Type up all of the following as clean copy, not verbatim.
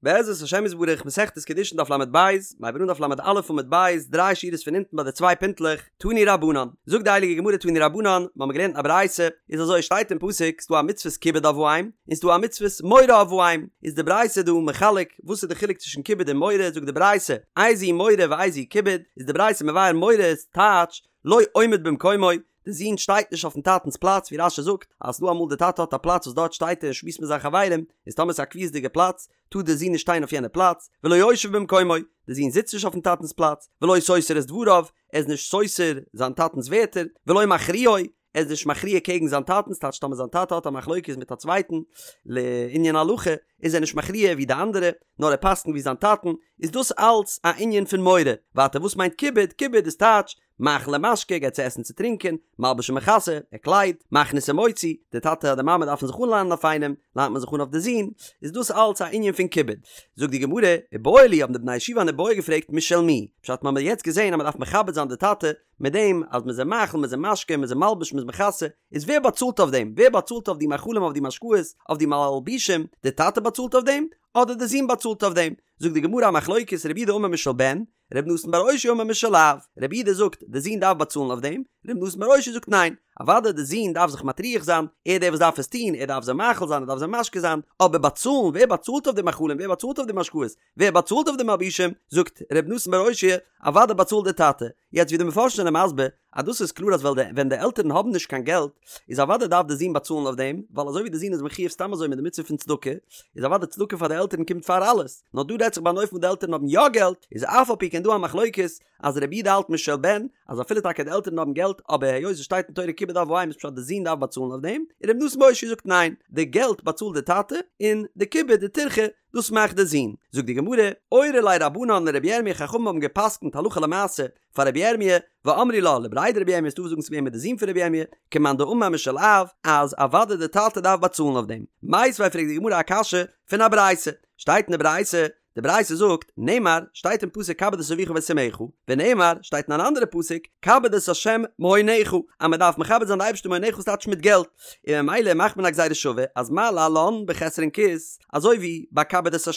בעזרת השם יתברך מסכת קידושין דף לב, מ'הייבט אן דף לא עמוד ב', דריי שורות פון אונטן ביי די צוויי פינטלעך, תנו רבנן, זאגט די הייליגע גמרא תנו רבנן, מ'האמיר געלערנט א ברייתא, איז אזוי שטייט אין פסוק ס'דא א מצוות כיבוד אב ואם, און ס'דא א מצוות מורא אב ואם, איז די ברייתא דא מחלק וואס איז די חילוק צווישן כיבוד און מורא, זאגט די ברייתא, איזהו מורא ואיזהו כיבוד, איז די ברייתא מבאר מורא איז טייטש לא עומד במקומו, די זון שטייט נישט אויפן טאטנס פלאץ ווי רש"י זאגט אז ס'דא אמאל די טאטע האט א פלאץ וואס דארט שטייט ער און שמועסט מיט זיין חברים, איז טאמער ס'איז א קביעות'דיגע פלאץ טאר די זון נישט שטיין אויף יענע פלאץ, ולא יושב במקומו, די זון זיצט נישט אויפן טאטנס פלאץ, ולא סותר את דבריו, ער איז נישט סותר זיין טאטנס ווערטער, ולא מכריעו, ער איז נישט מכריע קעגן זיין טאטן, ס'טייטש טאמער זיין טאטע האט א מחלוקת מיט א צווייטן לענין הלכה, איז ער נישט מכריע ווי די אנדערע, נאר ער פסק'נט ווי זיין טאטן, איז דאס אלץ א ענין פון מורא. ווייטער וואס מיינט כיבוד? כיבוד איז טייטש, מאכיל ומשקה, געבט צו עסן צו טרינקען, מלביש ומכסה, ער קליידט, מכניס ומוציא, די טאטע אדער מאמע דארפן זיך אנלאנען אויף איינעם, לאנט מען זיך אן אויף די זון, איז דאס אלץ א ענין פון כיבוד. זאגט די גמרא, איבעיא להו האבן די בני ישיבה אן איבעיא געפרעגט משל מי, פשט מ'האמיר יעצט געזען אז מ'דארף מכבד זיין די טאטע, מיט דעם אז מ'איז אים מאכיל, מ'איז אים משקה, מ'איז אים מלביש, מ'איז מכסה, איז ווער באצאלט אויף דעם? ווער באצאלט אויף די מאכלים אויף די משקאות, אויף די מלבישים, די טאטע באצאלט אויף דעם? אדער די זון באצאלט אויף דעם? זאגט די גמרא א מחלוקת רב יהודה אמר משל בן, רבי נתן בר אושעיא אמר משל אב, רב יהודה זאגט די זון דארף באצאלן אויף דעם, רבי נתן בר אושעיא זאגט ניין, אוודאי די זון דארף זיך מטריח זיין, ער דער וואס דארף עס טון, ער דארף זיי מאכיל זיין, ער דארף זיי משקה זיין, אבער באצאלן, ווער באצאלט אויף די מאכלים, ווער באצאלט אויף די משקאות, ווער באצאלט אויף די מלבישים, זאגט רבי נתן בר אושעיא, אוודאי באצאלט די טאטע, יעצט ווי די מפרשים זענען מסביר, אז דאס איז קלאר אז ווען די עלטערן האבן נישט קיין געלט, איז אוודאי דארף די זון באצאלן אויף דעם, ווייל אזוי ווי די זון איז מחויב סתם אזוי מיט די מצוה פון צדקה, איז אוודאי צדקה פאר די עלטערן קומט פאר אלעס, נאר דא רעדט זיך ביי אן אופן וואס די עלטערן האבן יא געלט, איז אף על פי כן דא א מחלוקת אז רבי יהודה האלט משל בן, אז אפילו טאקע די עלטערן האבן געלט, אבער היות עס שטייט אין תורה כיבוד אב ואם איז פשט די זון דארף באצאלן אויף דעם, און רבי נתן בר אושעיא זאגט ניין, די געלט באצאלט די טאטע, און די כיבוד די טירחה דאס מאכט די זון. זאגט די גמרא, אורו ליה רבנן לרבי ירמי' חכמים האבן גע'פסק'נט הלכה למעשה פאר רבי ירמי', ואמרי לה לבריה דרבי ירמי' ס'דא וואס זאגן ס'איז געווען מיט די זון פון רבי ירמי', כמאן דאמר משל אב, אז אוודאי די טאטע דארף באצאלן אויף דעם. מיתיבי פרעגט די גמרא א קשיא פון א ברייתא, שטייט אין די ברייתא, די ברייתא זאגט, נאמר, שטייט אין פסוק כבד את אביך ואת אמך, ונאמר, שטייט אין אן אנדערע פסוק, כבד את ה' מהונך, אז מען דארף מכבד זיין די אייבערשטער מהונך ס'טייטש מיט געלט, און ממילא מאכט מען א גזירה שווה אז מה להלן בחסרון כיס, אזוי ווי ביי כבד את ה'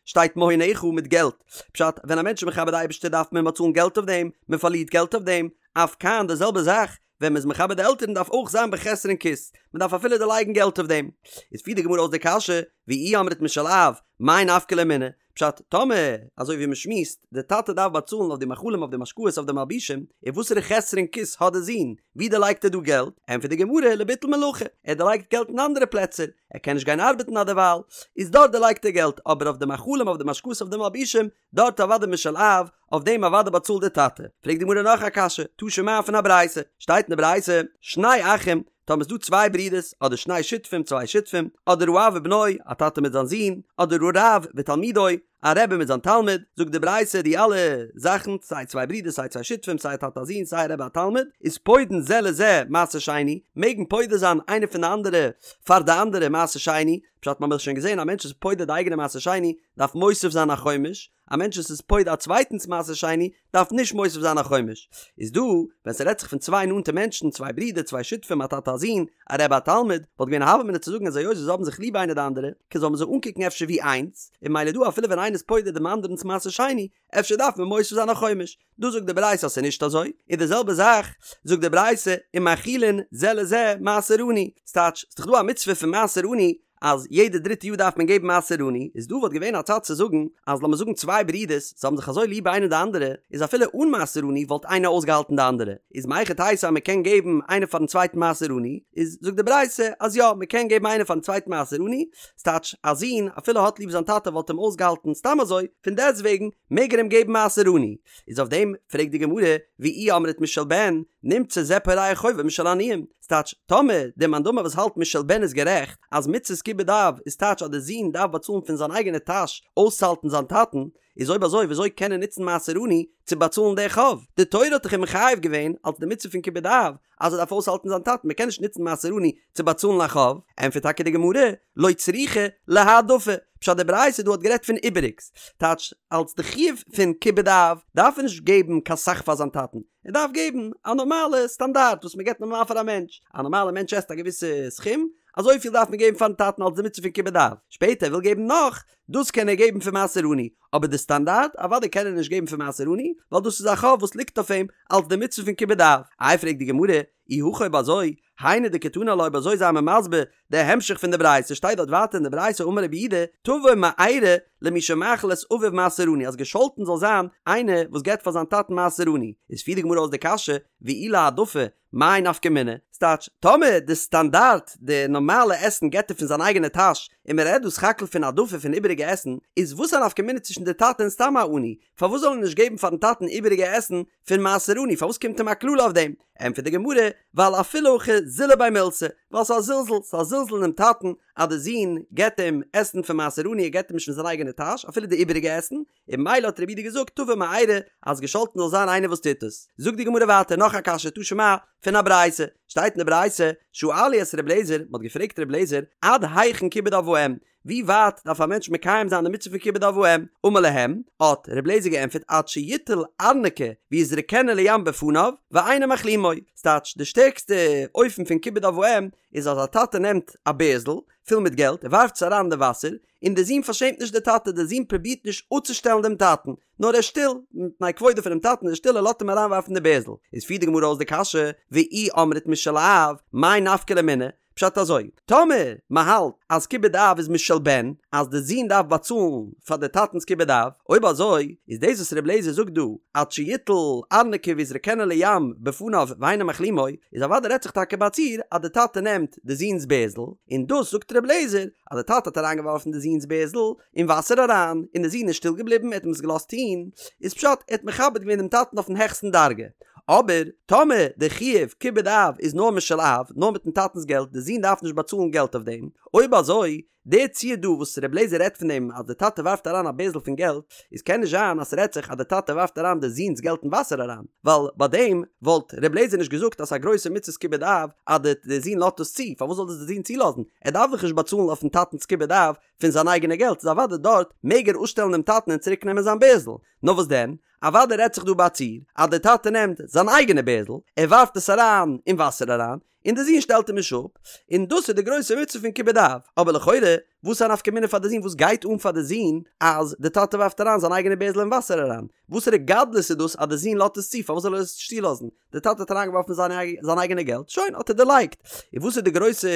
שטייט מהונך מיט געלט, פשט, ווען א מענטש איז מכבד די אייבערשטער דארף מען באצאלן געלט אויף דעם, מען פארלירט געלט אויף דעם, אף כאן די זעלבע זאך, ווען מען איז מכבד די עלטערן דארף אויך זיין בחסרון כיס, מען דארף אפילו דערלייגן געלט אויף דעם. איז פירט די גמרא אויס די קשיא, ואי אמרת משל אב, מאי נפקא ליה מינה? פשט, טאמער, אזוי ווי מען שמועסט, די טאטע דארף באצאלן אויף די מאכלים אויף די משקאות אויף די מלבישים, און וואסערע חסרון כיס האט די זון, ווי דערלייגט ער דא געלט? ענטפערט די גמרא, לביטול מלאכה, ער דערלייגט געלט אין אנדערע פלעצער, ער קען נישט גיין ארבעטן אדערווייל, איז דארט דערלייגט ער געלט, אבער אויף די מאכלים אויף די משקאות אויף די מלבישים, דארט אוודאי משל אב, אויף דעם אוודאי באצאלט דער טאטע. פרעגט די גמרא נאך א קשיא, תא שמע פון א ברייתא, שטייט אין די ברייתא, שני אחים, טאמער איז דא צוויי ברידערס, אדער שני שותפים, צוויי שותפים, אדער האב ובנו, א טאטע מיט זיין זון, אדער הרב ותלמידו, א רבי מיט זיין תלמיד, זאגט די ברייתא די אלע זאכן, סיי צוויי ברידערס, סיי צוויי שותפים, סיי א טאטע א זון, סיי א רבי א תלמיד, איז פודין זה לזה מעשר שני, מעגן פודה זיין איינער פון די אנדערע פאר די אנדערע מעשר שני, פשט מ'האמיר שוין געזען א מענטש איז פודה די אייגענע מעשר שני, דארף מוסיף זיין א חומש, א מענטש וואס איז פודה א צווייטנס מעשר שני דארף נישט מוסיף זיין א חומש. איז דא, ווען ס'רעדט זיך פון צוויי נאנטע מענטשן, צוויי ברידער, צוויי שותפים, א טאטע א זון, א רבי א תלמיד, וואלט געווען א הוה אמינא צו זאגן אז היות זיי האבן זיך ליב איינער די אנדערע, קען זאל מען זיי אנקוקן אפשר ווי איינס, און ממילא דא אפילו ווען איינער איז פודה דעם אנדערנס מעשר שני, אפשר דארף מען מוסיף זיין א חומש. דא זאגט די ברייתא אז ס'איז נישט אזוי, און די זעלבע זאך זאגט די ברייתא ומאכילין זה לזה מעשר עני, ס'טייטש, ס'איז דאך דא א מצוה פון מעשר עני אז יעדע דריטע יאר דארף מען געבן מעשר עני, איז דא וואלט געווען א צד צו זאגן אז לאמיר זאגן צוויי ברידערס, זיי האבן זיך אזוי ליב איינער די אנדערע, איז אפילו אן מעשר עני וואלט איינער אויסגעהאלטן די אנדערע, איז מהיכי תיתי אז מ'קען געבן איינער פארן צווייטן מעשר עני, איז זאגט די ברייתא אז יא מ'קען געבן איינער פארן צווייטן מעשר עני, ס'טייטש א זון אפילו האט ליב זיין טאטע וואלט אים אויסגעהאלטן סתם אזוי, פון דעסטוועגן מעג ער אים געבן מעשר עני. איז אויף דעם פרעגט די גמרא, ואי אמרת משל בן, נמצא זה פורע חובו משל עניים. ס'טייטש, טאמער דער מאן דאמר וואס האלט משל בן איז גערעכט, אז מצות כיבוד אב איז טייטש אז דער זון דארף באצאלן פון זיין אייגענע טאש אויסצוהאלטן זיין טאטן, איז אויב אזוי וויאזוי קען ער נוצן מעשר עני צו באצאלן די חוב? די תורה האט דאך אים מחייב געווען אלס די מצוה פון כיבוד אב אז ער דארף אויסהאלטן זיין טאטן, מ'קען נישט נוצן מעשר עני צו באצאלן א חוב, ענטפערט טאקע די גמרא, לא צריכא להעדפה, פשט די ברייתא דא האט גערעדט פון איבעריגס, טייטש אלס די חיוב פון כיבוד אב דארף ער נישט געבן קיין סך פאר זיין טאטן, ער דארף געבן א נארמאלע סטאנדארט וואס מען געבט נארמאל פאר א מענטש, א נארמאלע מענטש עסט א געוויסע סכום, אזויפיל דארף מען געבן פארן טאטן אלס די מצוה פון כיבוד אב, שפעטער ער וויל געבן נאך, דאס קען ער געבן פון מעשר עני, אבער די סטאנדארט, אוודאי קען ער נישט געבן פון מעשר עני, ווייל דאס איז א חוב וואס ליגט אויף אים אלס די מצוה פון כיבוד אב. איי פרעגט די גמרא, אי הכי אויב אזוי, היינו דקתני עלה אויב אזוי זיי מיר מסביר די המשך פון די ברייתא, שטייט דארט ווייטער אין די ברייתא אמר רבי יהודה, תבוא מארה למי שמאכיל את אביו מעשר עני אז געשאלטן זאל זיין איינער וואס געבט פאר זיין טאטן מעשר עני, איז פירט די גמרא אויס די קשיא, ואי להעדפה, מאי נפקא מינה? ס'טייטש, טאמער די סטאנדארט, די נארמאלע עסן געבט ער פון זיין אייגענע טאש, און מען רעדט דא סך הכל פון העדפה פון איבעריגע עסן, איז וואס א נפקא מינה צווישן די טאטע און סתם א עני? פארוואס זאל ער נישט געבן פארן טאטן איבעריגע עסן פון מעשר עני? פארוואס קומט אים א קללה אויף דעם? ענטפערט די גמרא, ווייל אפילו הכי זילא ביה מילתא, ווייל ס'איז א זלזול, ס'איז א זלזול אינעם טאטן אז די זון געבט אים עסן פון מעשר עני, ער געבט אים נישט פון זיין אייגענע טאש, אפילו די איבעריגע עסן, און ממילא האט רבי יהודה געזאגט תבוא מארה אז געשאלטן זאל זיין איינער וואס טוט עס. זאגט די גמרא ווייטער נאך א קשיא תא שמע פון א ברייתא, שטייט אין די ברייתא, שאלו את ר' אליעזר, מען האט געפרעגט ר' אליעזר, עד היכן כיבוד אב ואם, ווי ווייט דארף א מענטש מקיים זיין די מצוה פון כיבוד אב ואם, אמר להם, האט ר' אליעזר געענטפערט עד שיטול ארנקי ויזרקנו לים בפניו ואינו מכלימו, ס'טייטש די שטערקסטע אופן פון כיבוד אב ואם איז אז א טאטע נעמט א בערזל פול מיט געלט ער ווארפט עס אריין אין די וואסער, און דער זון פארשעמט נישט די טאטע, דער זון פרובירט נישט אפצושטעלן דעם טאטן, נאר ער איז שטיל, מפני כבודו פונעם טאטן איז ער שטיל ער לאזט אים אריינווארפן די בערזל. איז פירט די גמרא אויס די קשיא, ואי אמרת משל אב, מאי נפקא ליה מינה? פשט אזוי, טאמער מען האלט אז כיבוד אב איז משל בן, אז די זון דארף באצאלן פאר די טאטנס כיבוד אב, אויב אזוי איז דאס וואס ר' אליעזר זאגט דא, עד שיטול ארנקי ויזרקנו לים בפניו ואינו מכלימו, איז אוודאי רעדט זיך טאקע ביי א ציור אז די טאטע נעמט די זון'ס בערזל, און דאס זאגט ר' אליעזר, אז די טאטע האט אריינגעווארפן די זון'ס בערזל אין וואסער אריין, און די זון איז שטיל געבליבן, ער האט אים עס געלאזט טון, איז פשט ער האט מכבד געווען דעם טאטן אויפן העכסטן דרגה. אבער, טאמער די חיוב כיבוד אב איז נאר משל אב, נאר מיטן טאטנ'ס געלט, די זון דארף נישט באצאלן געלט אויף דעם, אויב אזוי, די ציור דא וואס ר' אליעזר רעדט פון דעם אז די טאטע ווארפט אריין א בערזל פון געלט, איז קען נישט זיין אז ס'רעדט זיך אז די טאטע ווארפט אריין די זון'ס געלט אין וואסער אריין, ווייל ביי דעם וואלט ר' אליעזר נישט געזאגט אז ס'איז א גרויסע מצות כיבוד אב אז די די זון לאזט עס צו, פארוואס זאל דאס די זון צולאזן? ער דארף דאך נישט באצאלן אויפן טאטנ'ס כיבוד אב פון זיין אייגענע געלט, איז אוודאי דארט מעג ער אפשטעלן דעם טאטן און צוריק נעמען זיין בערזל, נאר וואס דען? אוודאי רעדט זיך דא ביי א ציור אז די טאטע נעמט זיין אייגענע בערזל, ער ווארפט עס אריין אין וואסער אריין, און די זון שטעלט אים נישט אפ, און דאס איז די גרויסע מצוה פון כיבוד אב, אבער לכאורה, וואס איז א נפקא מינה פאר די זון, וואס גייט אן פאר די זון אז די טאטע ווארפט אריין זיין אייגענע בערזל אין וואסער אריין, וואסערע גדלות איז דאס אז די זון לאזט עס צו, פארוואס זאל ער עס נישט צולאזן, די טאטע האט אריינגעווארפן זיין אייגענע געלט, שוין, האט ער דערלייגט, און וואס איז די גרויסע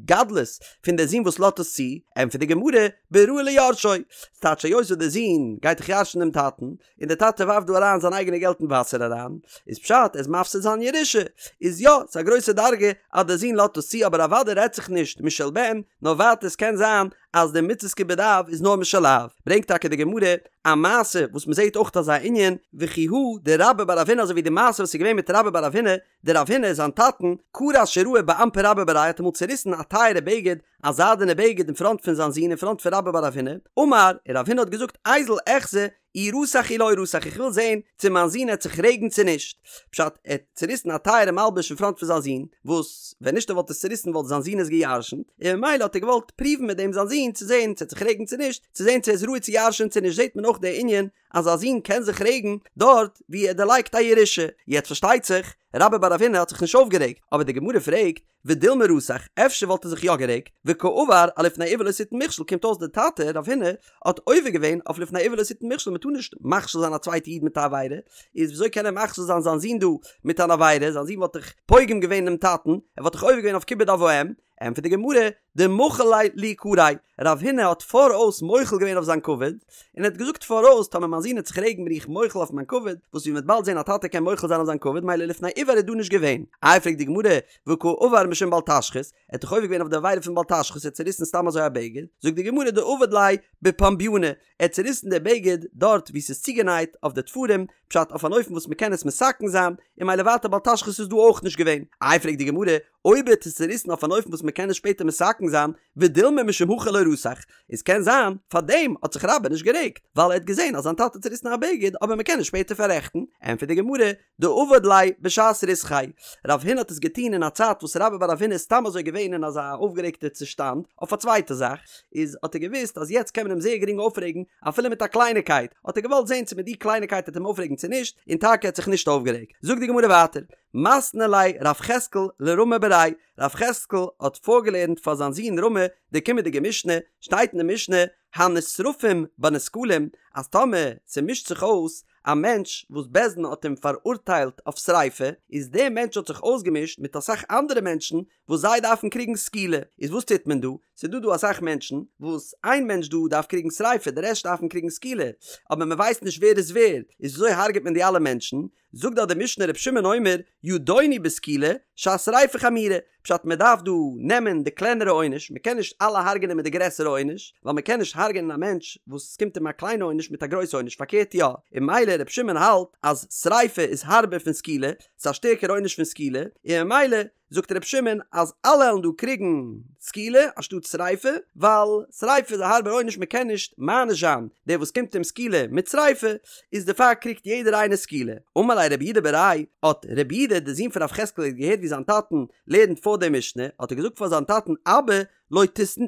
גדלות פון די זון וואס לאזט עס צו, ענטפערט די גמרא, בראוי ליורשו, ס'טייטש היות וואס די זון גייט דאך ירש'ן דעם טאטן, און דער טאטע ווארפט דא אריין זיין אייגענע געלט אין וואסער אריין, איז פשט ער איז מפסיד זיין ירושה, איז יא, ס'איז א גרויסע דרגה אז דער זון לאזט עס צו אבער אוודאי רעדט זיך נישט משל בן, נאר ווייטער עס קען זיין אז די מצות כיבוד אב איז נאר משל אב, ברענגט טאקע די גמרא א מעשה וואס מ'זעט אויך אזא ענין, וכי הא דרבה בר רב הונא אזוי ווי די מעשה וואס איז געווען מיט רבה בר רב הונא, דרב הונא זיין טאטן, קרע שיראי באנפי רבה בריה האט אמאל צוריסן א טייערע בגד, א זיידענע בגד אין פראנט פון זיין זון אין פראנט פון רבה בר רב הונא, אמר, און רב הונא האט געזאגט איזיל איחזי אי רתח אי לא רתח איך וויל זען צו מיין זון העט זיך רעגן צו נישט, פשט ער האט צוריסן א טייערע מלבוש אין פראנט פון זיין זון, וואס ווען נישט ער וואלט עס צוריסן וואלט זיין זון עס גע'ירש'נט, און ממילא האט ער געוואלט פרואוון מיט דעם זיין זון צו זען צו ער העט זיך רעגן צו נישט, צו זען צו ער איז ראוי צו ירש'ען צו נישט זעט מען אויך די ענין אז א זון קען זיך רעגן דארט ווי ער דערלייגט א ירושה, יעצט פארשטייט זיך רבה בר רב הונא האט זיך נישט אויפגערעגט, אבער די גמרא פרעגט, ודילמא רתח, אפשר וואלט ער זיך יא גערעגט, וקעבר אלפני עור לא תתן מכשול, קומט אויס די טאטע רב הונא האט עובר געווען אויף לפני עור לא תתן מכשול, מען טאר נישט מכשיל זיין א צווייטע איד מיט א עבירה, איז וויאזוי קען ער מכשיל זיין זיין זון דא מיט אן עבירה, זיין זון וואלט דאך פוגם געווען אינעם טאטן, ער וואלט דאך עובר געווען אויף כיבוד אב ואם, ענטפערט די גמרא, דמחיל ליה ליקריה, רב הונא האט פאראויס מוחל געווען אויף זיין כבוד, און ער האט געזאגט פאראויס טאמער מיין זון העט זיך רעגן בין איך מוחל אויף מיין כבוד, וואס ווי מ'וועט באלד זען א טאטע קען מוחל זיין אויף זיין כבוד מילא לפני עור איז דא נישט געווען. איי פרעגט די גמרא, והא קעבר משום בל תשחית, ער האט דאך עובר געווען אויף די עבירה פון בל תשחית, ער האט צוריסן סתם אזוי א בגד, זאגט די גמרא דעבד ליה בפומבייני, ער האט צוריסן די בגד דארט וואו ס'איז צוגענייט אויף די תפרים, פשט אויף אן אופן וואס מ'קען עס מתקן זיין, און מילא ווייטער בל תשחית איז דא אויך נישט געווען. איי פרעגט די גמרא, אויב ער האט עס צוריסן אויף אן אופן וואס מ'קען עס שפעטער מתקן זיין, ודילמא משום הכי לא רתח, איז קען זיין פאר דעם האט זיך רבה נישט גערעגט, ווייל ער האט געזען אז זיין טאטע האט צוריסן א בגד אבער מ'קען עס שפעטער פאררעכטן, ענטפערט די גמרא, דעבד ליה בשעת ריתחיה, רב הונא האט עס געטון אין א צייט וואס רבה בר רב הונא איז סתם אזוי געווען אין אזא אויפגערעגטע צושטאנד אויף א צווייטע זאך, איז האט ער געוואוסט אז יעצט קען מען אים זייער גרינג אויפרעגן אפילו מיט א קלייניקייט, האט ער געוואלט זען צו מיט די קלייניקייט וועט אים אויפרעגן צו נישט, און טאקע ער האט זיך נישט אויפגערעגט. זאגט די גמרא ווייטער. מתני ליה רב יחזקאל לרמי בריה, רב יחזקאל האט פארגעלערנט פאר זיין זון רמי די קומענדיגע משנה, שטייט אין די משנה, הנשרפים בנסקלים, אז טאמער ס'מישט זיך אויס א מענטש וואס בית דין האט אים פאראורטיילט אויף שריפה, איז דער מענטש האט זיך אויסגעמישט מיט אסאך אנדערע מענטשן וואס זיי דארפן קריגן סקילה, איז וואס טוט מען דא? ס'איז דא דא אסאך מענטשן וואס איין מענטש דא דארף קריגן שריפה די רעשט דארפן קריגן סקילה, אבער מען ווייסט נישט ווער איז ווער, איז וויאזוי הרג'ט מען די אלע מענטשן? זאגט דארט די משנה ר' שמעון אומר ידונו בסקילה שהשריפה חמורה, פשט מען דארף דא נעמען די קלענערע עונש, מען קען נישט אלע הרג'נען מיט די גרעסערע עונש, ווייל מען קען נישט הרג'נען א מענטש וואס ס'קומט אים א קליינע עונש מיט א גרויסע עונש, פארקערט יא, און ממילא ר' שמעון האלט אז שריפה איז הארבער פון סקילה, ס'איז א שטערקערע עונש פון סקילה, און ממילא זאגט ר' שמעון אז אלע וועלן דא קריגן סקילה אנשטאט שריפה, ווייל שריפה איז א הארבער עונש מען קען נישט מעניש זיין דער וואס קומט אים סקילה מיט שריפה, איז דערפאר קריגט יעדער איינער סקילה. אמר ליה רב יהודה בריה, האט רב יהודה דער זון פון רב יחזקאל האט געהערט ווי זיין טאטן לערנט פאר די משנה, האט ער געזאגט פאר זיין טאטן אבא לא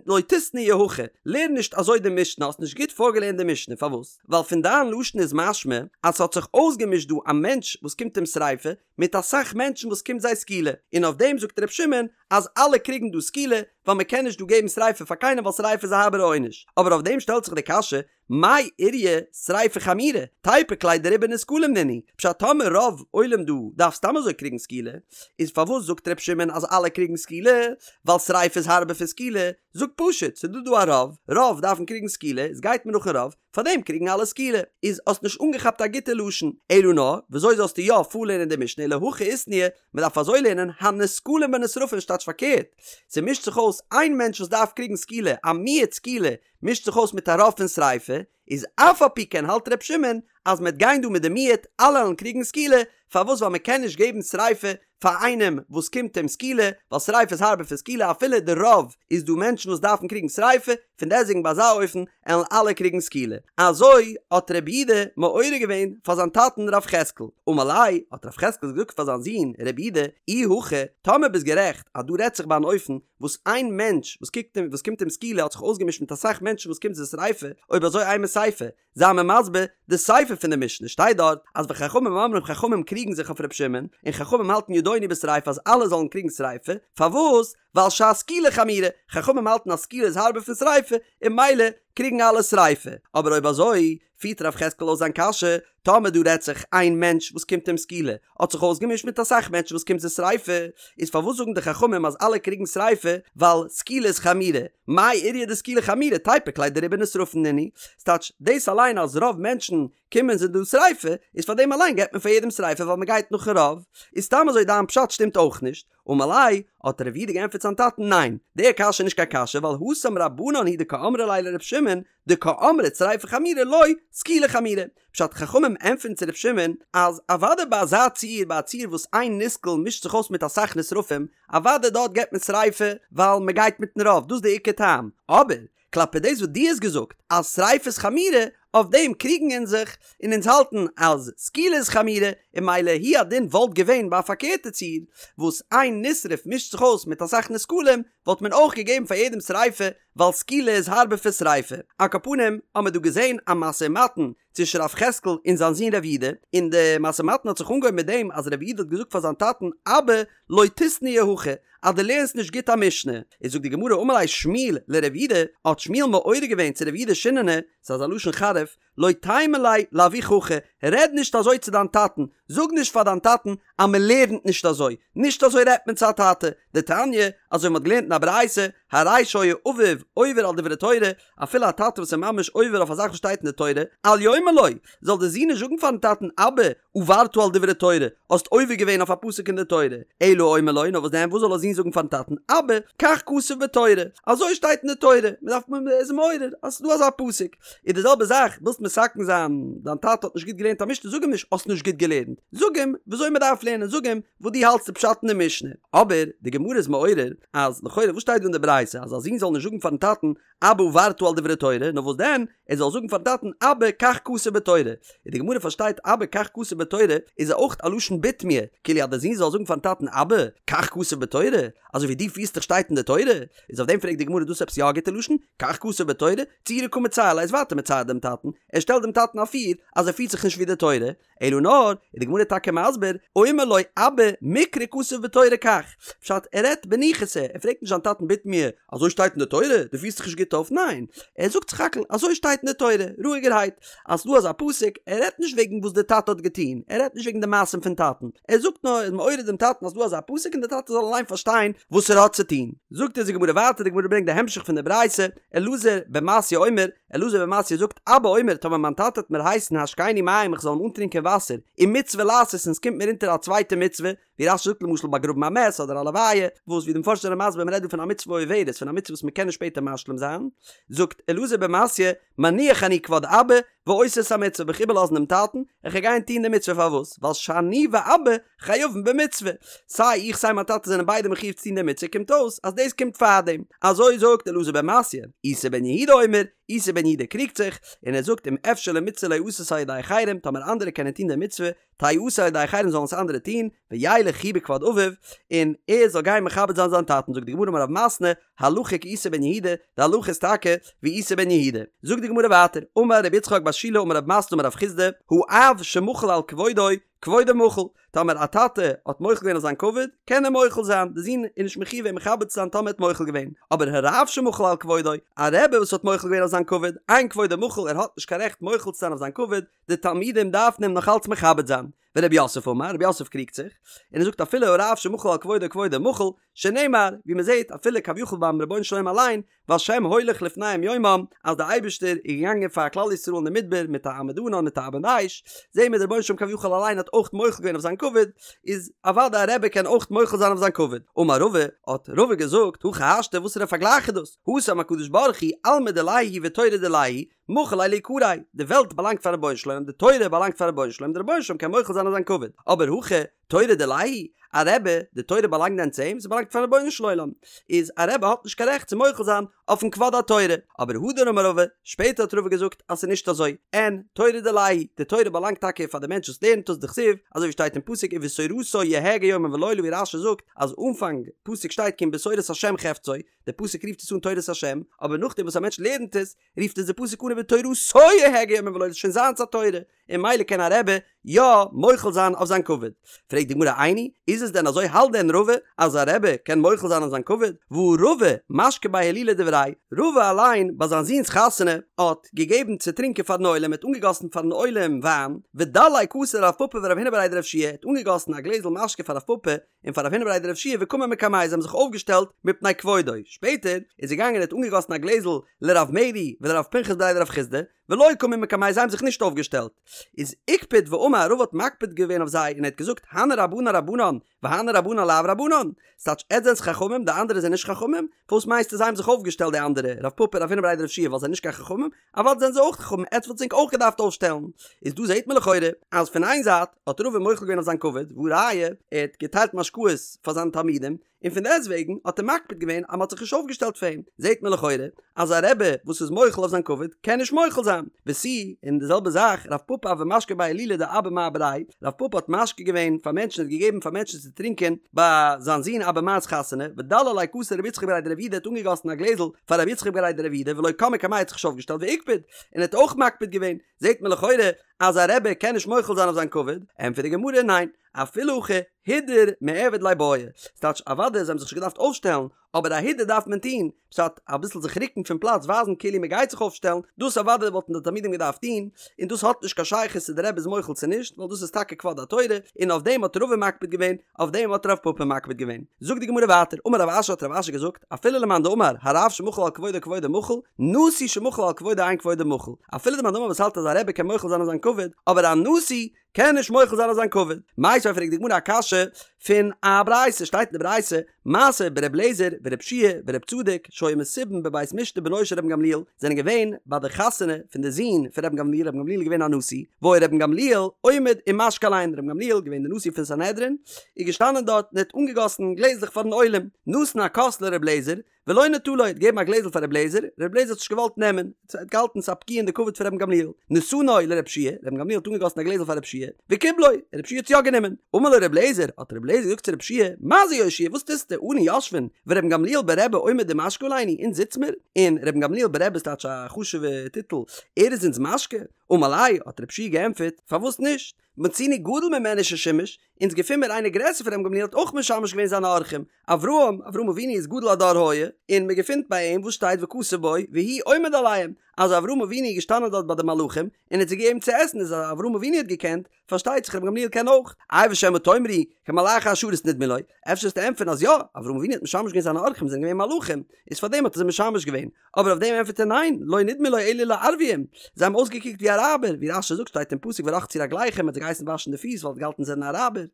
לא תיתנייה הכי, לערן נישט אזוי די משנה, האסט נישט גוט פארגעלערנט די משנה, פארוואס? ווייל פון דיין לשון איז משמע אז ס'האט זיך אויסגעמישט דא א מענטש וואס קומט אים שריפה, מיט אסאך מענטשן וואס קומט זיי סקילה, און אויף דעם זאגט ר' שמעון אז אלע קריגן דא סקילה, ווייל מען קען נישט דא געבן שריפה פאר קיינעם ווייל שריפה איז א הארבערע עונש, אבער אויף דעם שטעלט זיך די קשיא, מאי איריא שריפה חמירא, תיפוק ליה דרובא נסקלים נינהו, פשט טאמער רוב עולם דא דארף סתם אזוי קריגן סקילה, איז פארוואס זאגט ר' שמעון אז אלע קריגן סקילה, ווייל שריפה איז הארבער פון סקילה, זאג פשוט, ס'דא דא א רוב, רוב דארפן קריגן סקילה, איז גייט מען נאכן רוב, פארדעם קריגן אלע סקילה. איז האסט נישט אנגעכאפט א גוטע לשון. אלא נאר, וויאזוי זאלסטו יא פארלערנען די משנה אלא הכי איתנהו, מען דארף אזוי לערנען, הנסקלים בנשרפים ס'טייטש פארקערט. ס'מישט זיך אויס איין מענטש וואס דארף קריגן סקילה, א מיעוט סקילה, מישט זיך אויס מיט א רוב פון שריפה, איז אף על פי כן האלט ר' שמעון אז מ'עט גיין דא מיט די מיעוט, אלע וועלן קריגן סקילה, פארוואס ווייל מ'קען נישט געבן שריפה פאר איינעם וואס קומט אים סקילה, ווייל שריפה איז הארבער פון סקילה אפילו די רוב איז דא מענטשן וואס דארפן קריגן שריפה, פון דעסטוועגן ביי אזא אופן עלן אלע קריגן סקילה. אזוי האט רב יהודה מעורר געווען פאר זיין טאטן רב יחזקאל. אמר ליה, האט רב יחזקאל געזאגט פאר זיין זון רב יהודה, אי הכי, טאמער ביסט גערעכט אז דא רעדט זיך ביי אן אופן וואס איין מענטש וואס קוקט אים וואס קומט אים סקילה האט זיך אויסגעמישט מיט אסאך מענטשן וואס קומט זיי שריפה, אויב אזוי אימא סיפא, זיי מיר מסביר די סיפא פון די משנה שטייט דארט אז וחכמים אומרים חכמים קריגן זיך אויף ר' שמעון און חכמים האלטן ידונו בשריפה אז אלע זאלן קריגן שריפה, פארוואס? ווייל שהסקילה חמורה, חכמים האלטן אז סקילה איז הארבער פון שריפה און ממילא קריגן אלע שריפה, אבער אויב אזוי פירט רב יחזקאל אויס זיין קשיא, טאמער דא רעדט זיך איין מענטש וואס קומט אים סקילה האט זיך אויסגעמישט מיט אסאך מענטשן וואס קומט זיי שריפה, איז פארוואס זאגן די חכמים אז אלע קריגן שריפה ווייל סקילה איז חמירא? מאי איריא דסקילה חמירא תיפוק ליה דרובא נשרפין נינהו, ס'טייטש דאס אליין אז רוב מענטשן קומען זיי דא שריפה, איז פאר דעם אליין געבט מען פאר יעדעם שריפה ווייל מ'גייט נאכן רוב, איז סתם אזוי דיין פשט שטימט אויך נישט, אמר ליה, האט רב יהודה געענטפערט זיין טאטן ניין, די קשיא איז נישט קיין קשיא ווייל התם רבנן הוא דקאמרי ליה לר' שמעון דקאמרת שריפה חמירא לא סקילה חמירא, פשט חכמים ענטפערן צו ר' שמעון אז אוודאי ביי אזא ציור ביי א ציור וואס איין נסקל מישט זיך אויס מיט אסאך נשרפים אוודאי דארט געבט מען שריפה ווייל מען גייט מיטן רוב דאס איז די עיקר טעם אבער כלפי דאס וואס דו האסט געזאגט אז שריפה איז חמירא אויף דעם קריגן אונז זיך און אונז האלטן אז סקילה איז חמירא און ממילא הוא הדין וואלט געווען ביי א פארקערטע ציור וואס איין נשרף מישט זיך אויס מיט אסאך נסקלים וואלט מען אויך געגעבן פאר יעדעם שריפה ווייל סקילה איז הארבער פון שריפה. על כל פנים האמיר דא געזען א משא ומתן צווישן רב יחזקאל און זיין זון רב יהודה, און די משא ומתן האט זיך אנגעהויבן מיט דעם אז רב יהודה האט געזאגט פאר זיין טאטן אבא לא תיתנייה הכי אז דו לערנסט נישט גוט א משנה. איז זאגט די גמרא אמר ליה שמואל לרב יהודה, האט שמואל מעורר געווען צו רב יהודה שיננא, ס'איז אזא לשון חריף, לא תימא ליה לאבוך הכי, רעד נישט אזוי צו דיין טאטן, זאג נישט פאר דיין טאטן אז מען לערנט נישט אזוי, נישט אזוי רעדט מען צו א טאטע, דתניא, אזוי ווי מען האט געלערנט אין א ברייתא, הרי שהיה אביו עובר על דברי תורה, אפילו א טאטע וואס איז ממש עובר אויף א זאך וואס שטייט אין די תורה, אל יאמר לו, זאל דער זון נישט זאגן פארן טאטן אבא, עברת על דברי תורה, האסט עובר געווען אויף א פסוק אין די תורה, אלא אומר לו, נאר וואס דען, וואס זאל א זון זאגן פארן טאטן, אבא, כך כתוב בתורה, אזוי שטייט אין די תורה, מען דארף מען איז מעורר אז ס'איז דא אזא פסוק, איז די זעלבע זאך, ווילסט מתקן זיין, דיין טאטע האט נישט גוט געלערנט א משנה, זאג אים נישט האסט נישט גוט געלערנט, זאג אים וויאזוי מען דארף לערנען, זאג אים וואס דו האלטסט די פשט אין די משנה. אבער די גמרא איז מעורר אז לכאורה וואס שטייט דא אין די ברייתא? ברייתא אז א זון זאל נישט זאגן פארן טאטן אבא עברת על דברי תורה, נאר וואס דען, ער זאל זאגן פארן טאטן אבא כך כתוב בתורה, און די גמרא פארשטייט אבא כך כתוב בתורה איז אויך א לשון בתמיה, כאילו אז דער זון זאל זאגן פארן טאטן אבא כך כתוב בתורה, אזוי ווי דו פירסט דיך שטייט אין די תורה, איז אויף דעם פרעגט די גמרא דאס עפעס יא א גוטע לשון, כך כתוב בתורה, צעורי קא מצער ליה איז ווייטער מצער דעם טאטן, ער שטעלט דעם טאטן אפיר אז ער פירט זיך נישט ווי די תורה, אלא נאר, איז די גמרא טאקע מסביר, אומר לו אבא מקרא כתוב בתורה כך, פשט ער רעדט בניחותא, ער פרעגט נישט זיין טאטן בתמיה, אזוי שטייט אין די תורה? דו פירסט זיך נישט גוט אויף? ניין, ער זאגט סך הכל אזוי שטייט אין די תורה, רואיגערהייט, אז ס'דא אזא פסוק, ער רעדט נישט וועגן וואס די טאטע האט געטון, ער רעדט נישט וועגן די מעשים פון טאטן, ער זאגט נאר, ער איז מעורר דעם טאטן אז ס'דא אזא פסוק און די טאטע זאל אליין פארשטיין וואס ער האט צו טון. זאגט אונז די גמרא ווייטער, די גמרא ברענגט די המשך פון די ברייתא, אלעזר בן מתיא אומר, אלעזר בן מתיא זאגט, אבא אומר, טאמער מיין טאטע וועט מיר הייסן השקני מים איך זאל אים אנטרינקען וואסער, ומצוה לעשות און ס'קומט מיר אונטער א צווייטע מצוה, ווי רש"י זאגט למשל באגראבן א מת אדער א לוויה, וואס ווי די מפרשים זענען מסביר מ'רעדט דא פון א מצוה עוברת, פון א מצוה וואס מ'קען נישט שפעטער משלים זיין, זאגט אלעזר בן מתיא, מניח אני כבוד אבא, ועושה את המצוה, וועל איך איבערלאזן דעם טאטן, איך וועל גיין טון די מצוה פארוואס? ווייל שאני ואבא חייבין במצוה, סיי איך סיי מיין טאטע זענען ביידע מחיוב צו טון די מצוה קומט אויס אז דאס קומט פארדעם, אזוי זאגט אלעזר בן מתיא, איסי בן יהודה אומר, איסי בן יהודה קריגט זיך, און ער זאגט אם אפשר למצוה ליעשות על ידי אחרים, טאמער אנדערע קענען טון די מצוה, תיעשה על ידי אחרים זאלן עס אנדערע טון, וילך הוא בכבוד אביו, און ער זאל גיין מכבד זיין זיין טאטן, זאגט די גמרא אמר רב מתנה, הלכה כאיסי בן יהודה, די הלכה איז טאקע ווי איסי בן יהודה. זאגט די גמרא ווייטער, אמר רבי יצחק בר שילא אמר רב מתנה אמר רב חסדא, האב שמחל על כבודו, כבודו מחול, טאמער א טאטע האט מוחל געווען אויף זיין כבוד, קען ער מוחל זיין, די זון איז נישט מחיוב אים מכבד צו זיין טאמער ער האט מוחל געווען, אבער הרב שמחל על כבודו, א רבי וואס האט מוחל געווען אויף זיין כבוד, אין כבודו מחול, ער האט נישט קיין רעכט מוחל צו זיין אויף זיין כבוד, די תלמידים דארפן אים נאך אלץ מכבד זיין. ורב יוסף אמר, רב יוסף קריגט זיך, און ער זאגט אפילו הרב שמחל על כבודו כבודו מחול, שנאמר, ווי מען זעט אפילו כביכול ביים רבונו של עולם אליין, והשם הולך לפניהם יומם, אז דער אייבערשטער איז געגאנגען פאר כלל ישראל אין די מדבר מיט א עמוד ענן מיט א עמוד אש, זעהן מיר דער רבונו של עולם כביכול אליין האט אויך מוחל געווען אויף זיין כבוד, איז אוודאי א רבי קען אויך מוחל זיין אויף זיין כבוד. אמר רבא, האט רבא געזאגט, הכי השתא וואסערע פארגלייך איז דאס? התם הקדוש ברוך הוא, עלמא דיליה הוא ותורה דיליה היא, מחיל ליה ליקריה, די וועלט באלאנגט פארן רבונו של עולם, די תורה באלאנגט פארן רבונו של עולם, דער רבונו של עולם קען מוחל זיין אויף זיין כבוד, אבער הכא, תורה דיליה היא, א רבי, די תורה באלאנגט דען צו אים? ס'באלאנגט פארן רבונו של עולם, איז א רבי האט נישט קיין רעכט צו מוחל זיין אויפן כבוד התורה, אבער הדר אמר רבא, שפעטער האט רבא געזאגט אז ס'איז נישט אזוי, אין, תורה דיליה היא, די תורה באלאנגט טאקע פאר די מענטש וואס לערנט עס, דכתיב, אזוי ווי שטייט אין פסוק ובתורתו יהגה יומם ולילה ווי רש"י זאגט אז אנפאנג פסוק שטייט כי אם בתורת השם חפצו, די פסוק רופט עס אן תורת השם, אבער נאכדעם וואס א מענטש לערנט עס, רופט עס די פסוק אן ובתורתו יהגה יומם ולילה, ס'איז שוין זיינס א תורה, און ממילא קען א רבי יא מוחל זיין אויף זיין כבוד. פרעגט די גמרא איני, איז עס דען אזוי האלט דען רבא אז א רבי קען מוחל זיין אויף זיין כבוד? והא רבא משקי בי הילולא דבריה, רבא אליין ביי זיין זון'ס חתונה האט געגעבן צו טרינקען פארן עולם, ער האט אנגעגאסן פארן עולם וויין, ודלי כסא לרב פפא ורב הונא בריה דרב יהושע, ער האט אנגעגאסן א גלעזל משקה פאר רב פפא און פאר רב הונא בריה דרב יהושע וקמו מקמיה זיי האבן זיך אויפגעשטעלט מפני כבודו, שפעטער איז ער געגאנגען און האט אנגעגאסן א גלעזל לרב מרי ולרב פנחס בריה דרב חסדא, ולא קמו מקמיה זיי האבן זיך נישט אויפגעשטעלט, איז איקפד ואמר רבא האט מקפיד געווען אויף זיי און ער האט געזאגט הני רבנן רבנן והני רבנן לאו רבנן, ס'טייטש עטס זענטס חכמים די אנדערע זענען נישט חכמים? פארוואס מיינסטו זיי האבן זיך אויפגעשטעלט די אנדערע רב פפא רב הונא בריה דרב יהושע ווייל זיי זענען נישט קיין חכמים? אוודאי זענען זיי אויך חכמים עטס וואלטס ענק אויך געדארפט אויפשטעלן. איז דא זעהט מען לכאורה אז פון איין זייט האט רבא מוחל געווען אויף זיין כבוד והא ראיה ער האט געטיילט משקאות פאר זיינע תלמידים און פון דעסטוועגן האט ער מקפיד געווען אז מען האט זיך נישט אויפגעשטעלט פאר אים, זעהט מען לכאורה אז א רבי וואס איז מוחל אויף זיין כבוד קען נישט מוחל זיין, ותו, און די זעלבע זאך רב פפא הוה משקי בי הילולא דאבא מר בריה, רב פפא האט משקה געווען פאר מענטשן ער האט געגעבן פאר מענטשן צו טרינקען ביי זיין זון אבא מר'ס חתונה, ודלי ליה כסא לרבי יצחק בריה דרב יהודה האט אנגעגאסן א גלעזל פאר רבי יצחק בריה דרב יהודה ולא קם מקמיה האט זיך נישט אויפגעשטעלט ואיקפד, און ער האט אויך מקפיד געווען, זעהט מען לכאורה אז א רבי קען נישט מוחל זיין אויף זיין כבוד, ענטפערט די גמרא ניין, אפילו הכי הידור מיעבד ליה בעי, ס'טייטש אוודאי זיי האבן זיך נישט געדארפט אויפשטעלן, אבער א הידור דארף מען טון, פשט אביסל זיך רוקן פון פלאץ ווייזן כאילו מען גייט זיך אויפשטעלן, דאס אוודאי וואלטן די תלמידים געדארפט טון, און דאס האט נישט קיין שייכות צו די רבי איז מוחל צו נישט, ווייל דאס איז טאקע כבוד התורה, און אויף דעם האט רבא מקפיד געווען, אויף דעם האט רב פפא מקפיד געווען. זאגט די גמרא ווייטער, אמר רב אשי האט רב אשי געזאגט, אפילו למאן דאמר הרב שמחל על כבודו כבודו מחול, נשיא שמחל על כבודו אין כבודו מחול, אפילו די מאן דאמר וואס האלט אז א רבי קען מוחל זיין אויף זיין כבוד, אבער א נשיא קען נישט מוחל זיין אויף זיין כבוד. מיתיבי פרעגט די גמרא א קשיא פון א ברייתא, שטייט אין די ברייתא, מעשה בר' אליעזר ור' יהושע ור' צדוק שהיו מסובין בבית משתה בנו של רבן גמליאל, זענען געווען ביי די חתונה פון די זון פון רבן גמליאל, רבן גמליאל איז געווען א נשיא, והיה רבן גמליאל עומד ומשקה עליהן, רבן גמליאל געווען די נשיא פון סנהדרין, איז געשטאנען דארט און האט אנגעגאסן גלעזלעך פארן עולם, נתן הכוס לר' אליעזר, ולא נטלו, האט געגעבן א גלעזל פאר ר' אליעזר, ר' אליעזר האט נישט געוואלט נעמען, ער האט געהאלטן ס'איז א פגיעה אין די כבוד פון רבן גמליאל, נתנו לר' יהושע, רבן גמליאל האט אנגעגאסן א גלעזל פאר ר' יהושע, וקיבלו, ר' יהושע האט יא גענומען, אמר לו ר' אליעזר, האט ר' אליעזר געזאגט צו ר' יהושע, מה זה יהושע, וואס טוסטו, אנו יושבין, ורבן גמליאל ברבי עומד ומשקה עלינו, אונז זיץ מיר, און רבן גמליאל ברבי איז טייטש א חשוב'ע טיטל, ער איז אונז משקה, אמר ליה, האט ר' יהושע געענטפערט, פארוואס נישט, מצינו גדול ממנו ששימש, אונז געפין מיר איינער גרעסער פון רבן גמליאל האט אויך משמש געווען זיינע אורחים, אברהם, אברהם אבינו איז גדול הדור היה, און מען געפינט ביי אים וואס שטייט וכתוב בו והוא עומד עליהם, אז אברהם אבינו איז געשטאנען דארט ביי די מלאכים און האט זיי געגעבן צו עסן איז אז אברהם אבינו האט געקענט, פארשטייט זיך רבן גמליאל קען אויך. איי ושמא תאמרו, כמלאכי השרת נדמו לו, אפשר וועסטו ענטפערן אז יא, אברהם אבינו האט משמש געווען זיינע אורחים זענען געווען מלאכים, איז פארדעם האט ער זיי משמש געווען, אבער אויף דעם ענטפערט ער ניין, לא נדמו לו אלא לערביים, זיי האבן אויסגעקוקט ווי אראבער, ווי רש"י זאגט שטייט אין פסוק ורחצו רגליכם האט זיי געהייסן וואשן די פיס ווייל ער האט געהאלטן זיי זענען אראבער,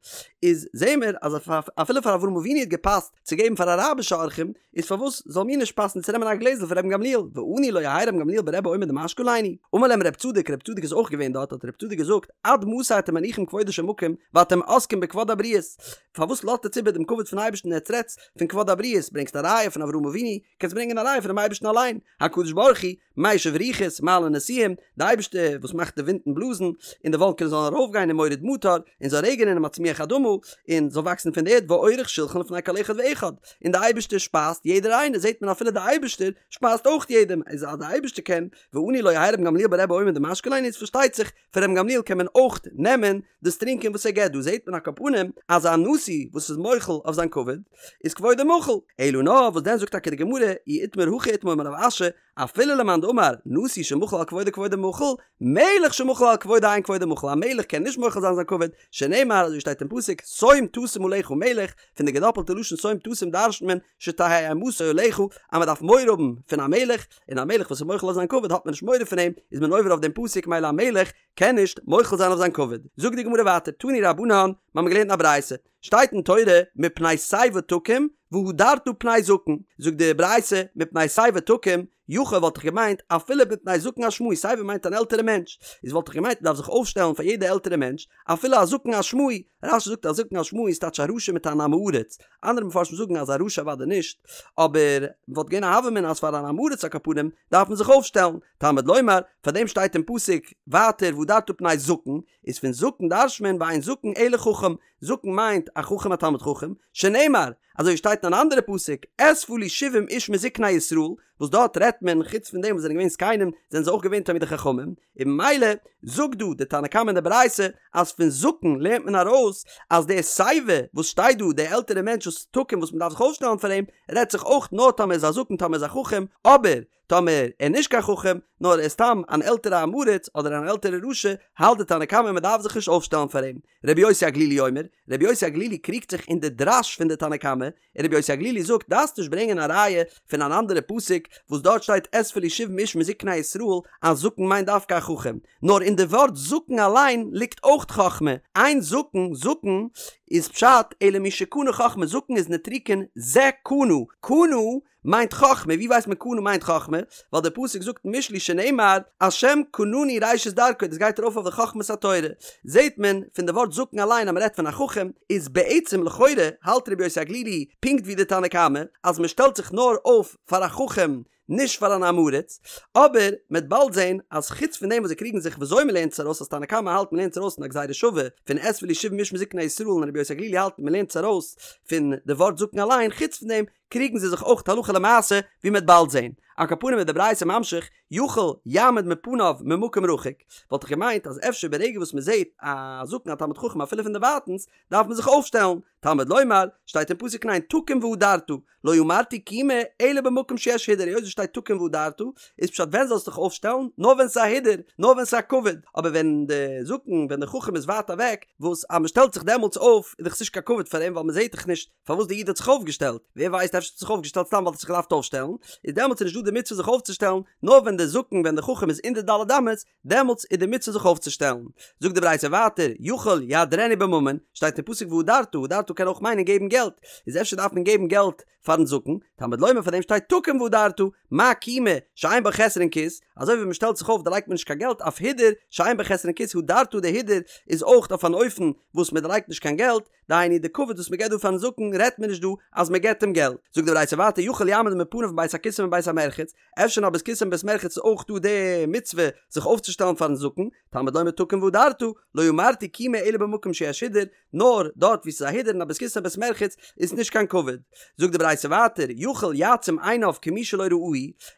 איז זעהן מיר אז אפילו פאר אברהם אבינו האט געפאסט צו געבן פאר אראבישע אורחים, איז פארוואס זאל מיר נישט פאסן צו נעמען א גלעזל פון רבן גמליאל, ואנו לא יהא רבן גמליאל ברבי עומד ומשקה עלינו? אמר להם רב צדוק, רב צדוק איז אויך געווען דארט, האט רב צדוק געזאגט, עד מתי אתם מניחים כבודו של מקום ואתם עוסקים בכבוד הבריות, פארוואס לאזט עטץ איבער דעם כבוד פון אייבערשטן און עטץ רעדטס פון כבוד הבריות, ברענגסט א ראיה פון אברהם אבינו, קענסט ברענגען א ראיה פונעם אייבערשטן אליין, הקדוש ברוך הוא, משיב רוחות, מעלה נשיאים, די אייבערשטער וואס מאכט די ווינטן בלאזן, און די וואלקענעס זאלן ארויפגיין און מוריד מטר, און זאל רעגענען און מצמיח אדמה, און זאל וואקסן פון די ערד ועורך שלחן לפני כל אחד ואחד, און די אייבערשטער שפייזט יעדער איינער, זעט מען אפילו די אייבערשטער שפייזט אויך יעדעם, איז אז די אייבערשטער קען, ואנו לא יהא רבן גמליאל ברבי עומד ומשקה עלינו, איז פארשטייט זיך פון רבן גמליאל קען מען אויך נעמען דאס טרינקען וואס ער געבט, דא זעט מען על כל פנים אז א נשיא וואס איז מוחל אויף זיין כבוד איז כבודו מחול, אלא נאר וואס דען זאגט טאקע די גמרא אי איתמר הכי איתמר אמר רב אשי אפילו למאן דאמר נשיא שמחל על כבודו כבודו מחול, מלך שמחל על כבודו אין כבודו מחול, א מלך קען נישט מוחל זיין זיין כבוד, שנאמר אזוי שטייט אין פסוק שום תשים עליך מלך, פון די געדאפלטע לשון שום תשים דרש'נט מען שתהא אימתו עליך אז מען דארף מורא האבן פון א מלך, און א מלך וואס איז מוחל אויף זיין כבוד האט מען נישט מורא פון אים, איז מען עובר אויף דעם פסוק מילא א מלך קען נישט מוחל זיין אויף זיין כבוד. זאגט די גמרא ווייטער, תנו רבנן, מיר האבן געלערנט אין א ברייתא, שטייט אין תורה מפני שיבה תקום והדרת פני זקן, זאגט די ברייתא מפני שיבה תקום, יכול וואלט איך געמיינט אפילו מפני זקן אשמאי, שיבה מיינט אן עלטערע מענטש, איז וואלט איך געמיינט מ'דארף זיך אויפשטעלן פאר יעדע עלטערע מענטש, אפילו א זקן אשמאי, רש"י זאגט א זקן אשמאי איז טייטש א רשע מיט אן עם הארץ, אנדערע מפרשים זאגן אז א רשע אוודאי נישט, אבער וואלט געווען א הוה אמינא אז פאר אן עם הארץ על כל פנים דארף מען זיך אויפשטעלן, תלמוד לומר, פאר דעם שטייט אין פסוק ווייטער והדרת פני זקן, איז פון זקן דרש'ט מען ואין זקן אלא חכם, זקן מיינט א חכם א תלמיד חכם, שנאמר, אזוי ווי שטייט אין אן אנדערע פסוק, אספה לי שבעים איש מזקני ישראל, וואס דארט רעדט מען חוץ פון דעם וואס זענען געווען זקנים, זענען זיי אויך געווען תלמידי חכמים, און ממילא זאגט דא די תנא קמא אין די ברייתא אז פון זקן לערנט מען ארויס אז די שיבה וואס שטייט דא די עלטערע מענטש וואס תקום וואס מען דארף זיך אויפשטעלן פאר אים רעדט זיך אויך נאר טאמער איז א זקן טאמער איז א חכם אבער טאמער ער נישט קיין חכם נאר ער איז סתם אן עלטערע עם הארץ אדער אן עלטערע רשע האלט די תנא קמא מען דארף זיך נישט אויפשטעלן פאר אים. רבי יוסי הגלילי אומר, רבי יוסי הגלילי קריגט זיך אין די דרש פון די תנא קמא, און רבי יוסי הגלילי זאגט דארפסט נישט ברענגען א ראיה פון אן אנדערע פסוק וואס דארט שטייט אספה לי שבעים איש מזקני ישראל אז זקן מיינט דווקא א חכם, נאר אין די ווארט זקן אליין ליגט אויך חכמה, אין זקן, זקן איז פשט אלא מי שקנה חכמה, זקן איז נוטריקון זה קנה, קנה מיינט חכמה, ווי ווייסט מען קנה מיינט חכמה? ווייל דער פסוק זאגט אין משלי שנאמר השם קנני ראשית דרכו, דאס גייט ארויף אויף די חכמת התורה, זעט מען פון די ווארט זקן אליין אז מען רעדט פון א חכם, איז בעצם לכאורה האלט רבי יוסי הגלילי פונקט ווי די תנא קמא אז מען שטעלט זיך נאר אויף פאר א חכם נישט פאר אן עם הארץ, אבער מען וועט באלד זען אז חוץ פון דעם וואס זיי קריגן זיך וויאזוי מען לערנט עס ארויס אז תנא קמא האלט מען לערנט עס ארויס פון א גזירה שווה פון אספה לי שבעים איש מזקני ישראל און רבי יוסי הגלילי האלט מען לערנט עס ארויס פון די ווארט זקן אליין, חוץ פון דעם קריגן זיי זיך אויך הלכה למעשה ווי מ'וועט באלד זען. על כל פנים איז די ברייתא ממשיך, יכול יעמוד מפניו ממקום רחוק, וואלט איך געמיינט אז אפשר ברגע וואס מ'זעט א זקן א תלמיד חכם אפילו פון דערווייטענס דארף מען זיך אויפשטעלן, תלמוד לומר, שטייט אין פסוק ניין תקום והדרת, לא אמרתי קימה אלא במקום שיש הידור, היות עס שטייט תקום והדרת, איז פשט ווען זאלסטו דיך אויפשטעלן? נאר ווען ס'איז א הידור, נאר ווען ס'איז א כבוד, אבער ווען די זקן, ווען די חכם איז ווייט אוועק, וואס אז מ'שטעלט זיך דעמאלטס אויף איז דאך עס נישט קיין כבוד פאר אים ווייל מ'זעט דאך נישט פארוואס די איד האט זיך אויפגעשטעלט, ווער ווייסט אפשר האט ער זיך אויפגעשטעלט סתם ווייל ער האט זיך געדארפט אויפשטעלן, איז דעמאלטס איז נישט דא די מצוה זיך אויפצושטעלן, נאר ווען די זקן ווען די חכם איז אין די ד' אמות, דעמאלטס איז די מצוה זיך אויפצושטעלן. זאגט די ברייתא ווייטער, יכול יהדרנו בממון, שטייט אין פסוק והדרת, והדרת קען אויך מיינען געבן געלט, איז אפשר דארף מען געבן געלט פארן זקן, תלמוד לומר פאר דעם שטייט תקום והדרת, מה קימה שאין בה חסרון כיס, אזוי ווי מען שטעלט זיך אויף דערלייגט מען נישט קיין געלט, אף הידור שאין בה חסרון כיס הדרת די הידור איז אויך אויף אן אופן וואס מען דערלייגט נישט קיין געלט, דהיינו די כבוד וואס מען געבט דא פארן זקן רעדט מען נישט דא אז מען געבט אים געלט. זאגט די ברייתא ווייטער יכול יעמוד מפניו מבית הכסא ומבית המרחץ, אפשר אין א בית כסא און בית מרחץ איז אויך דא די מצוה זיך אויפצושטעלן פארן זקן, תלמוד לומר תקום והדרת, לא אמרתי קימה אלא במקום שיש הידור, נאר דארט וואו ס'איז א הידור אין א בית כסא און בית מרחץ איז נישט קיין כבוד. זאגט די ברייתא ווייטער יכול יעצום עיניו כמי שלא ראהו,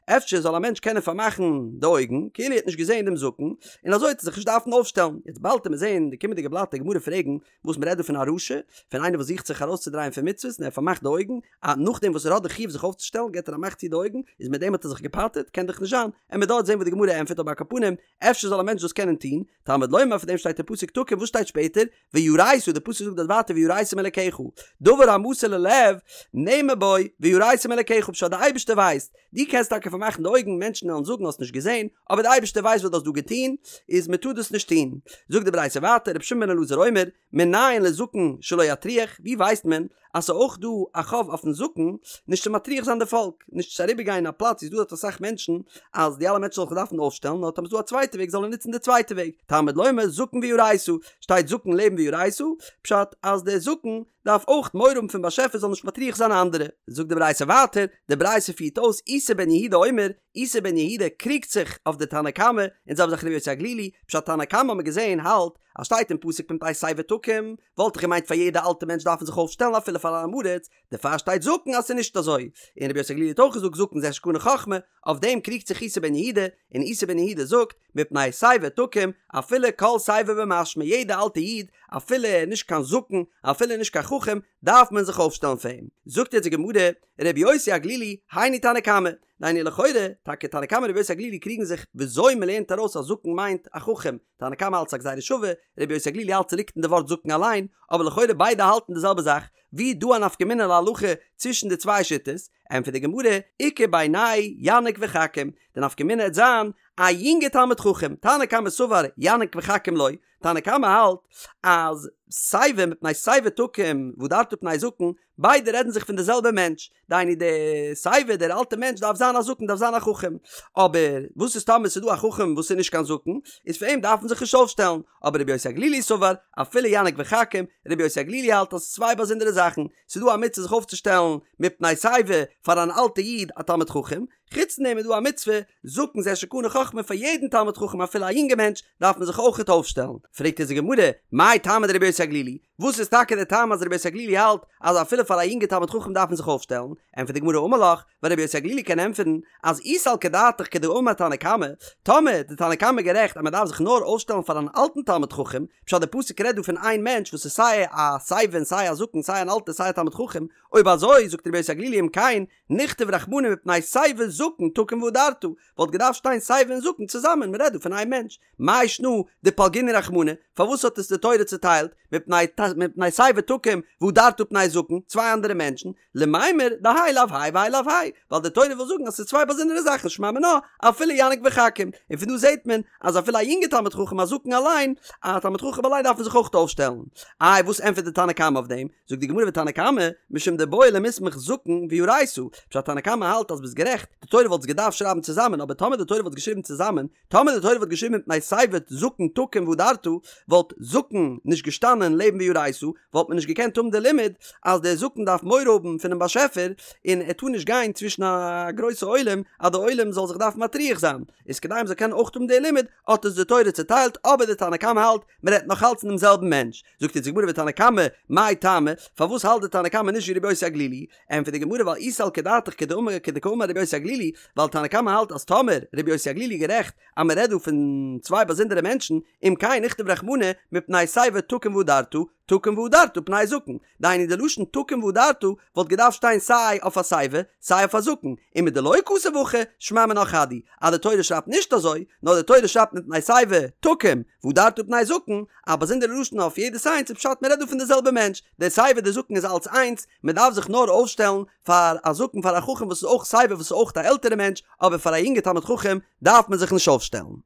אפשר זאל א מענטש קענען פארמאכן די אויגן כאילו ער האט נישט געזען דעם זקן, און אזוי וועט ער זיך נישט דארפן אויפשטעלן. יעצט באלד וועט מען זען אין די קומענדיגע בלאט די גמרא פרעגן וואס מ'רעדט דא פון א רשע, פון איינער וואס זוכט זיך ארויסצודרייען פון מצוות און ער פארמאכט די אויגן, א נאכדעם וואס ער האט די חיוב זיך אויפצושטעלן געט ער א מאך צו די אויגן, איז מיט דעם האט ער זיך געפטר'ט? קען דאך נישט זיין, עמיר דארט זען וואס די גמרא ענטפערט אבער על כל פנים, אפשר זאל א מענטש דאס קענען טון, תלמוד לומר פאר דעם שטייט אין פסוק תקום וואס שטייט שפעטער? ויראת, די פסוק זאגט דארט ווייטער ויראת מאלקיך, דבר המסור ללב נאמר בו ויראת מאלקיך פשט די אייבערשטער ווייסט, דו קענסט טאקע פארמאכן די אויגן מענטשן וועלן זאגן האסט נישט געזען, אבער די אייבערשטער ווייסט וואס דו האסט דא געטון, איז מען טאר דאס נישט טון. זאגט די ברייתא ווייטער רבי שמעון בן אלעזר אומר, מנין לזקן שלא יטריח, ווי ווייסט מען אז ס'איז אויך דא א חוב אויפן זקן נישט צו מטריח זיין די פאלק, נישט צו אריבער גיין א פלאץ ווי ס'איז דא דארט אסאך מענטשן, אז די אלע מענטשן זאלן זיך דארפן אויפשטעלן, נאר טאמער ס'איז דא א צווייטע וועג זאל ער נוצן די צווייטע וועג, תלמוד לומר זקן ויראת, שטייט זקן לעבן ויראת, פשט אז דער זקן דארף אויך מורא האבן פון באשעפער זאל נישט מטריח זיין אנדערע. זאגט די ברייתא ווייטער, די ברייתא פירט אויס איסי בן יהודה אומר, איסי בן יהודה קריגט זיך אויף די תנא קמא, און זעלבע זאך רבי יוסי הגלילי, פשט תנא קמא האט מען געזען האלט אז שטייט אין פסוק מפני שיבה תקום, וואלט איך געמיינט פאר יעדע אלטע מענטש דארף מען זיך אויפשטעלן אפילו פאר אן עם הארץ, דערפאר שטייט זקן אז ס'איז נישט אזוי, און רבי יוסי הגלילי האט אויך געזאגט זקן זה שקנה חכמה, אויף דעם קריגט זיך איסי בן יהודה, און איסי בן יהודה זאגט, מפני שיבה תקום, אפילו כל שיבה במשמע יעדע אלטע איד, אפילו ער איז נישט קיין זקן, אפילו נישט קיין חכם, דארף מען זיך אויפשטעלן פאר אים. זאגט יעצט די גמרא, רבי יוסי הגלילי, היינו תנא קמא, דהיינו לכאורה, טאקע תנא קמא און רבי יוסי הגלילי קריגן זיך וויאזוי מ'לערנט ארויס אז זקן מיינט א חכם, תנא קמא האלט ס'איז א גזירה שווה, רבי יוסי הגלילי האלט ס'ליגט אין די ווארט זקן אליין, אבער לכאורה ביידע האלטן די זעלבע זאך, ווי איז דא א נפקא מינה להלכה צווישן די צוויי שיטות? ענטפערט די גמרא, איכא בינייהו יניק וחכים, די נפקא מינה העט זיין א יונגע תלמיד חכם, תנא קמא סבר יניק וחכים לא, תנא קמא האלט אז שיבה מפני שיבה תקום והדרת פני זקן, ביידע רעדן זיך פון די זעלבע מענטש, דהיינו די שיבה דער אלטע מענטש דארף זיין א זקן דארף זיין א חכם, אבער וואס איז טאמער ס'איז דא א חכם וואס איז נישט קיין זקן, איז פאר אים דארף מען זיך נישט אויפשטעלן, אבער רבי יוסי הגלילי סבר אפילו יניק וחכים, רבי יוסי הגלילי האלט אז ס'איז צוויי באזונדערע זאכן, ס'איז דא א מצוה זיך אויפצושטעלן מפני שיבה פאר אן אלטע איד א תלמיד חכם, חוץ פון דעם איז דא א מצוה זקן זה שקנה חכמה פאר יעדן תלמיד חכם אפילו א יונגע מענטש דארף מען זיך אויכעט אויפשטעלן, פרעגט אונז די גמרא, מאי טעמא דרבי יוסי הגלילי, וואס איז טאקע די טעם אז רבי יוסי הגלילי האלט אז אפילו פאר א יונגע תלמיד חכם דארף מען זיך אויפשטעלן, ענטפערט די גמרא אמר לך, ווייל רבי יוסי הגלילי קען ענטפערן אז אי סלקא דעתך כדאמר תנא קמא, טאמער די תנא קמא גערעכט אז מען דארף זיך נאר אויפשטעלן פאר אן אלטן תלמיד חכם, פשט די פסוק רעדט דא פון איין מענטש וואס איז סיי א שיבה און סיי א זקן סיי אן אלטער סיי א תלמיד חכם, אויב אזוי זאגט רבי יוסי הגלילי אם כן נכתוב רחמנא מפני שיבה זקן תקום והדרת, וואלט געדארפט שטיין שיבה און זקן צוזאמען, מען רעדט דא פון איין מענטש, מאי שנא דפלגינהו רחמנא, פארוואס האט עס די תורה צוטיילט, מפני מפני שיבה תקום והדרת פני זקן, צוויי אנדערע מענטשן, למימר דהאי לאו האי והאי לאו האי, ווייל די תורה וויל זאגן אז ס'איז צוויי באזונדערע זאכן שמע מינה אפילו יניק וחכים, און פון דא זעט מען אז אפילו א יונגע תלמיד חכם א זקן אליין, א תלמיד חכם אליין דארף מען זיך אויך אויפשטעלן. איי וואס ענטפערט די תנא קמא אויף דעם? זאגט די גמרא ותנא קמא, משום דבעי למיסמך זקן ויראת, פשט תנא קמא האלט אז ביסט גערעכט, די תורה וואלט עס געדארפט שרייבן צוזאמען, אבער טאמער די תורה וואלט געשריבן צוזאמען, טאמער די תורה וואלט געשריבן מפני שיבה זקן תקום והדרת, וואלט זקן נישט געשטאנען לעבן ויראת, וואלט מען נישט געקענט האבן די לימוד אז דער זקן דארף מורא האבן פונעם באשעפער, און ער טאר נישט גיין צווישן א גרויסע עולם אז די עולם זאל זיך דארפן מטריח זיין, איז כדי מ'זאל קענען אויך האבן די לימוד האט עס די תורה צוטיילט, אבער די תנא קמא האלט מ'רעדט נאך אלץ פון דעם זעלבן מענטש. זאגט אונז די גמרא ותנא קמא, מאי טעמא, פארוואס האלט די תנא קמא נישט ווי רבי יוסי הגלילי? ענטפערט די גמרא ווייל אי סלקא דעתך כדאמר כדקאמר רבי יוסי הגלילי, ווייל תנא קמא האלט אז טאמער רבי יוסי הגלילי איז גערעכט אז מען רעדט דא פון צוויי באזונדערע מענטשן, אם כן נכתוב רחמנא מפני שיבה תקום והדרת, תקום והדרת פני זקן, דהיינו די לשון תקום והדרת וואלט געדארפט שטיין סיי אויף א שיבה סיי אויף א זקן, ומדלא כתב הכי שמע מינה חד הוא, אז די תורה שרייבט נישט אזוי, נאר די תורה שרייבט מפני שיבה תקום והדרת פני זקן, א באזונדערע לשון אויף יעדעס איינס איז פשט מען רעדט דא פון די זעלבע מענטש, דער שיבה דער זקן איז אלץ איינס, מען דארף זיך נאר אויפשטעלן פאר א זקן פאר א חכם וואס איז אויך שיבה וואס איז אויך א עלטערע מענטש, אבער פאר א יונגע תלמיד חכם דארף מען זיך נישט אויפשטעלן.